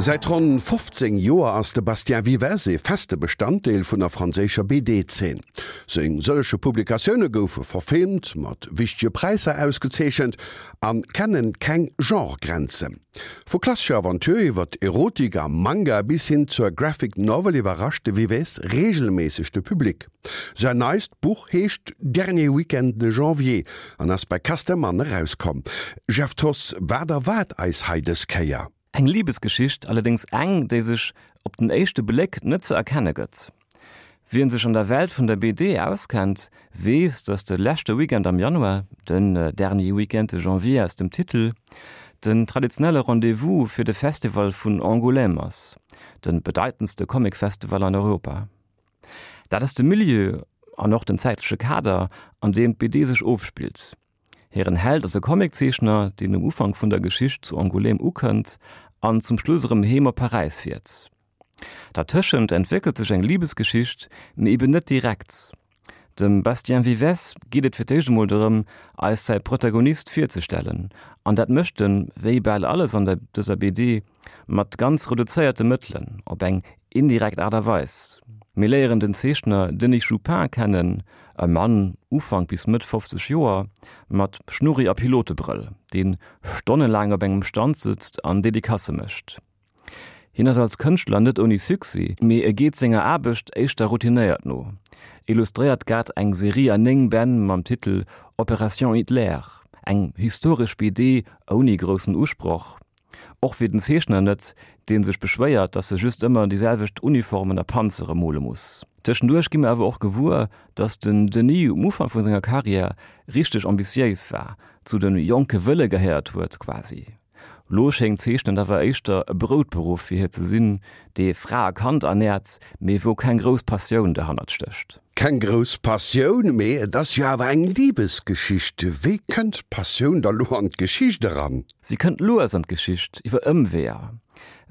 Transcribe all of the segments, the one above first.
Säit ronn 15 Joer ass de Bastien Vivès ee feste Bestanddeel vun der franséischer BD-Zeen. Seng sëllege Publikatioune goufe verfilmt, mat wichtege Präisser ausgezeechent a kennen keng Genre-Grenzen. Vu klassescher Aventure iwwer Erotik a Manga bis hin zur Graphic Novel iwwerrascht de Vivès reegelméisseg de Public. Säin neist Buch heescht Dernier Week-end de janvier an ass bei Casterman erauskomm. Jeff Thoss, wat erwaart eis hei dës Kéier? Eng Libesgeschicht, allerdéngs eng, déi sech op den éischte Bléck net ze erkenne gëtt. Wien sech an der Welt vun der BD auskennt, weess, datt de leschte Weekend am Januar, den Dernier Week-end de janvier aus dem Titel, den traditionelle Rendez-vous fir de Festival vun Angoulême ass, de bedeitendste Comic-Festival an Europa. Dat ass de Milieu an och den zäitleche Kader, an deem d'BD sech ofspillt. Hiren Held ass e Comiczeechner, deen um Ufank vun der Geschicht zu Angoulême ukënnt an zum Schluss erëm heem op Paräis fiert. Dertëschent entwéckelt sech eng Libesgeschicht, mee eben net direkt. Dem Bastien Vivès geet et fir d'éischt emol dorëm, eis säi Protagonist virzestellen, an dat mécht en, wéi bal alles an der dëser BD, mat ganz reduzéierte Mëttelen, op eng indirekt Aart a Weis. Mir léieren den Zeechner Denis Joupin kennen, e Mann Ufank bis Mëtt 50 Joer, mat Schnurri a Pilotebrëll, dee stonnelaang op engem Stand sëtzt an Dedicacë mécht. Hien ass als Kënschtler net ouni Succès, mee e geet senger Aarbecht éischter routinéiert no, illustréiert grad eng Serie an 9 Bänn mam Titel Opération Hitler, eng historesch BD ouni groussen Usproch, Och fir den Zeechner net, dee sech beschwéiert, dass e just ëmmer déi selwecht Uniformen a Panzere mole muss. Tëschenduerch gi mer awer och gewuer, dass den Denis um Ufank vu senger Karriär richteg ambitiéis war, zu de jonke Wëlle gehéiert huet quasi. Lo schéngt Zeechnen awer éischter e Broutberuff fir hie ze sinn, dee Fra a Kand ernäert, mee wou keng grouss Passioun derhannert stécht. Keng grouss Passioun, mee et ass jo awer eng Libesgeschicht. Wéi kënnt d'Passioun da lo an d'Geschicht eran? Si kënnt lues an d'Geschicht, iwwer Ëmweeër.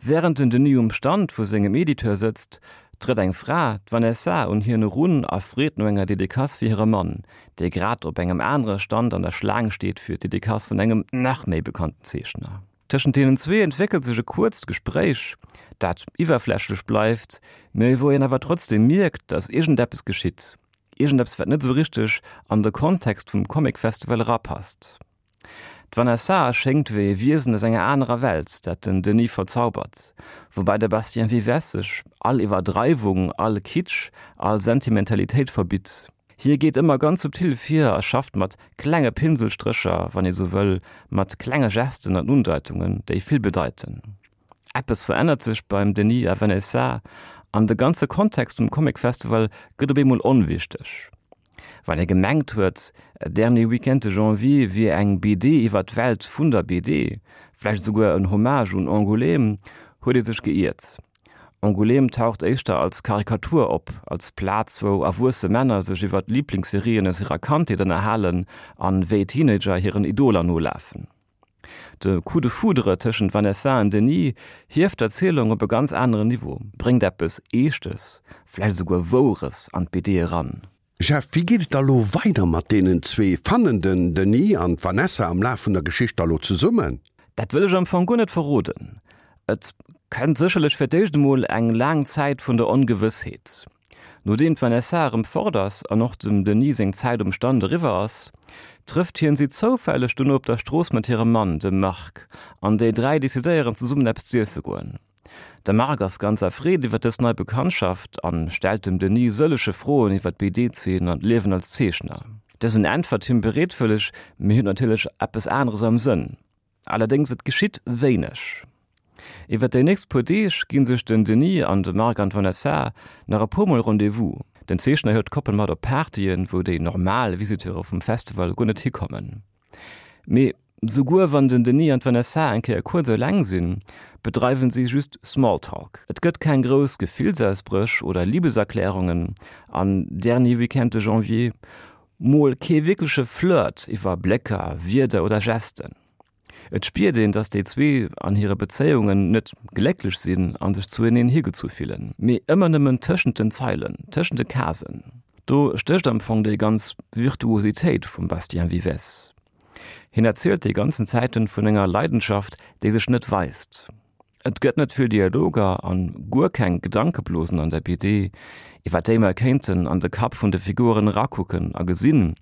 Wärend den Denis um Stand vu sengem Editeur sëtzt, trëtt eng Fra, d'Vanessa, un hien erun a freet no enger Dedicace fir hire Mann, dee grad op engem anere Stand an der Schlaang steet fir d'Dedicace vun engem nach méi bekannten Zeechner. Tëschent deenen zwee entwéckelt sech e kuerzt Gespréich, dat iwwerflächlech bleift, mee wou een awer trotzdeem mierkt, datt iergendeppes geschitt, iergendeppes wat net esou richteg an de Kontext vum Comic Festival erapasst. D'Vanessa schéngt wéi e Wiesen aus enger anerer Welt, dat den Denis verzaubert, woubäi de Bastien Vivès sech all Iwwerdreiwung, all Kitsch, all Sentimentalitéit verbitt. Hie geet ëmmer ganz subtil vir a schafft mat klenge Pinselstrécher, wann ee sou wëll, mat klenge Gesten an Undeitungen, déi vill bedeiten. Eppes verännert sech beim Denis a Vanessa an de ganze Kontext vum Comic Festival gëtt op eemol onwichteg. Wann ee gemengt huet, Dernier Week-end de janvier wier eng BD iwwer d'Welt vun der BD, vläicht esouguer en Hommage un Angoulême, huet ee sech geiert. Angoulême taucht éischter als Karikatur op, als Plaz wou erwuesse Männer sech iwwer d'Liblingsserien aus hirer Kandheet ënnerhalen an wéi Teenager hiren Idoler nolafen. De Coup de foudre tëschent Vanessa an Denis hieft d'Erzielung op e ganz aneren Niveau, bréngt eppes Eeschtes, vläicht esouguer Woures an d'BD eran. Jeff, wéi geet et da lo weider mat deenen zwee? Fannen den Denis an d'Vanessa am Laf vun der Geschicht da lo zesummen? Dat wëll ech am Fong guer net verroden. Et kënnt sécherlech fir d'éischt emol eng laang Zäit vun der Ongewëssheet. Nodeem d'Vanessa erëm fort ass an och dem Denis seng Zäit um Stand eriwwer ass, trëfft hien si zoufälleg dono op der Strooss mat hirem Mann, dem Marc, an déi 3 decidéieren zesummen eppes z'iesse goen. De Marc ass ganz erfreet iwwer dës nei Bekanntschaft an stellt dem Denis sëllege Froen iwwer d'BD-Zeen an d'Liewen als Zeechner. Dësen äntwert him bereetwëlleg, mee huet natierlech eppes aneres am Sënn. Allerdéngs, et geschitt wéineg. Iwwer déi nächst puer Deeg gi sech den Denis an de Marc an d'Vanessa nach e puer Mol Rendez-vous. Den Zeechner hëlt d'Koppel mat op Partyen, wou déi normal Visiteure vum Festival guer net hikommen. Mee souguer wann den Denis an d'Vanessa eng Kéier kuerz eleng sinn, bedreiwen si just Smalltalk. Et gëtt keng grouss Gefillsausbréch oder Libeserklärungen an Dernier Week-end de janvier. Mol kee wierkleche Flirt iwwer Blécker, Wierder oder Gesten. Et spiert een, dass déi zwee an hire Bezéiungen net glécklech sinn a sech zueneen higezu fillen, mee ëmmer nëmmen tëschent den Zeilen, tëschent de Casen. Do stécht am Fong déi ganz Virtuositéit vum Bastien Vivès. Hien erzielt déi ganzen Zäiten vun enger Leidenschaft, déi sech net weist. Et gëtt net vill Dialoger an guer keng Gedankeblosen an der BD, iwwer déi mer kéinten an de Kapp vun de Figuren erakucken a gesinn,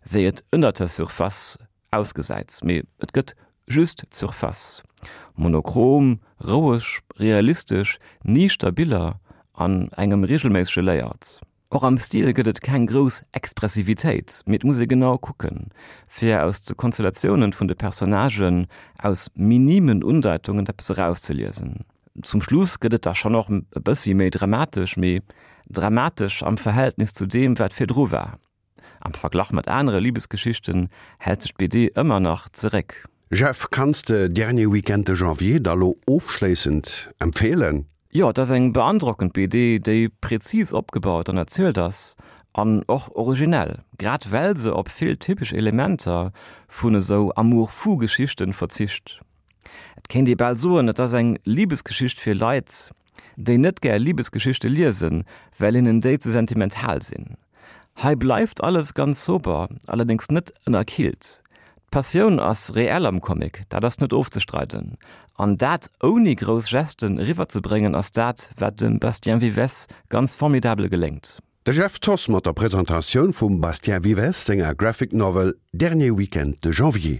wéi et ënnert der Surface ausgesäit. Mee et gëtt just d'Surface. Monochrom, roueg, realistesch, niichter Biller an engem reegelméissege Layout. Och am Stil gëtt et keng grouss Expressivitéit, mee et muss ee genau kucken, fir aus de Konstellatiounen vun de Personnagen aus minimen Undeitungen eppes erauszeliesen. Zum Schluss gëtt et da schonn och e bëssi méi dramatesch, mee dramatesch am Verhältnis zu deem, wat virdru war. Am Verglach mat anere Libesgeschichten hält sech d'BD ëmmer nach zeréck. Jeff, kanns de Dernier Week-end de Janvier da lo ofschléissend empfeelen? Jo, et ass eng beandrockend BD, déi präzis opgebaut an erzielt ass an och originell, grad well se op vill typesch Elementer vun esou Amour-fou-Geschichten verzicht. Et kéint ee bal soen, et ass eng Libesgeschicht fir Leit, déi net gär Libesgeschichte liesen, well hinnen déi ze sentimental sinn. Hei bleift alles ganz sober, allerdéngs net ënnerkillt. D'Passioun ass reell am Comic, dat ass net ofzestreiden. An dat ouni grouss Gesten eriwwerzebréngen ass dat, wat dem Bastien Vivès ganz formidabel geléngt. De Jeff Thoss mat der Presentatioun vum Bastien Vivès senger Graphic Novel Dernier Week-end de Janvier.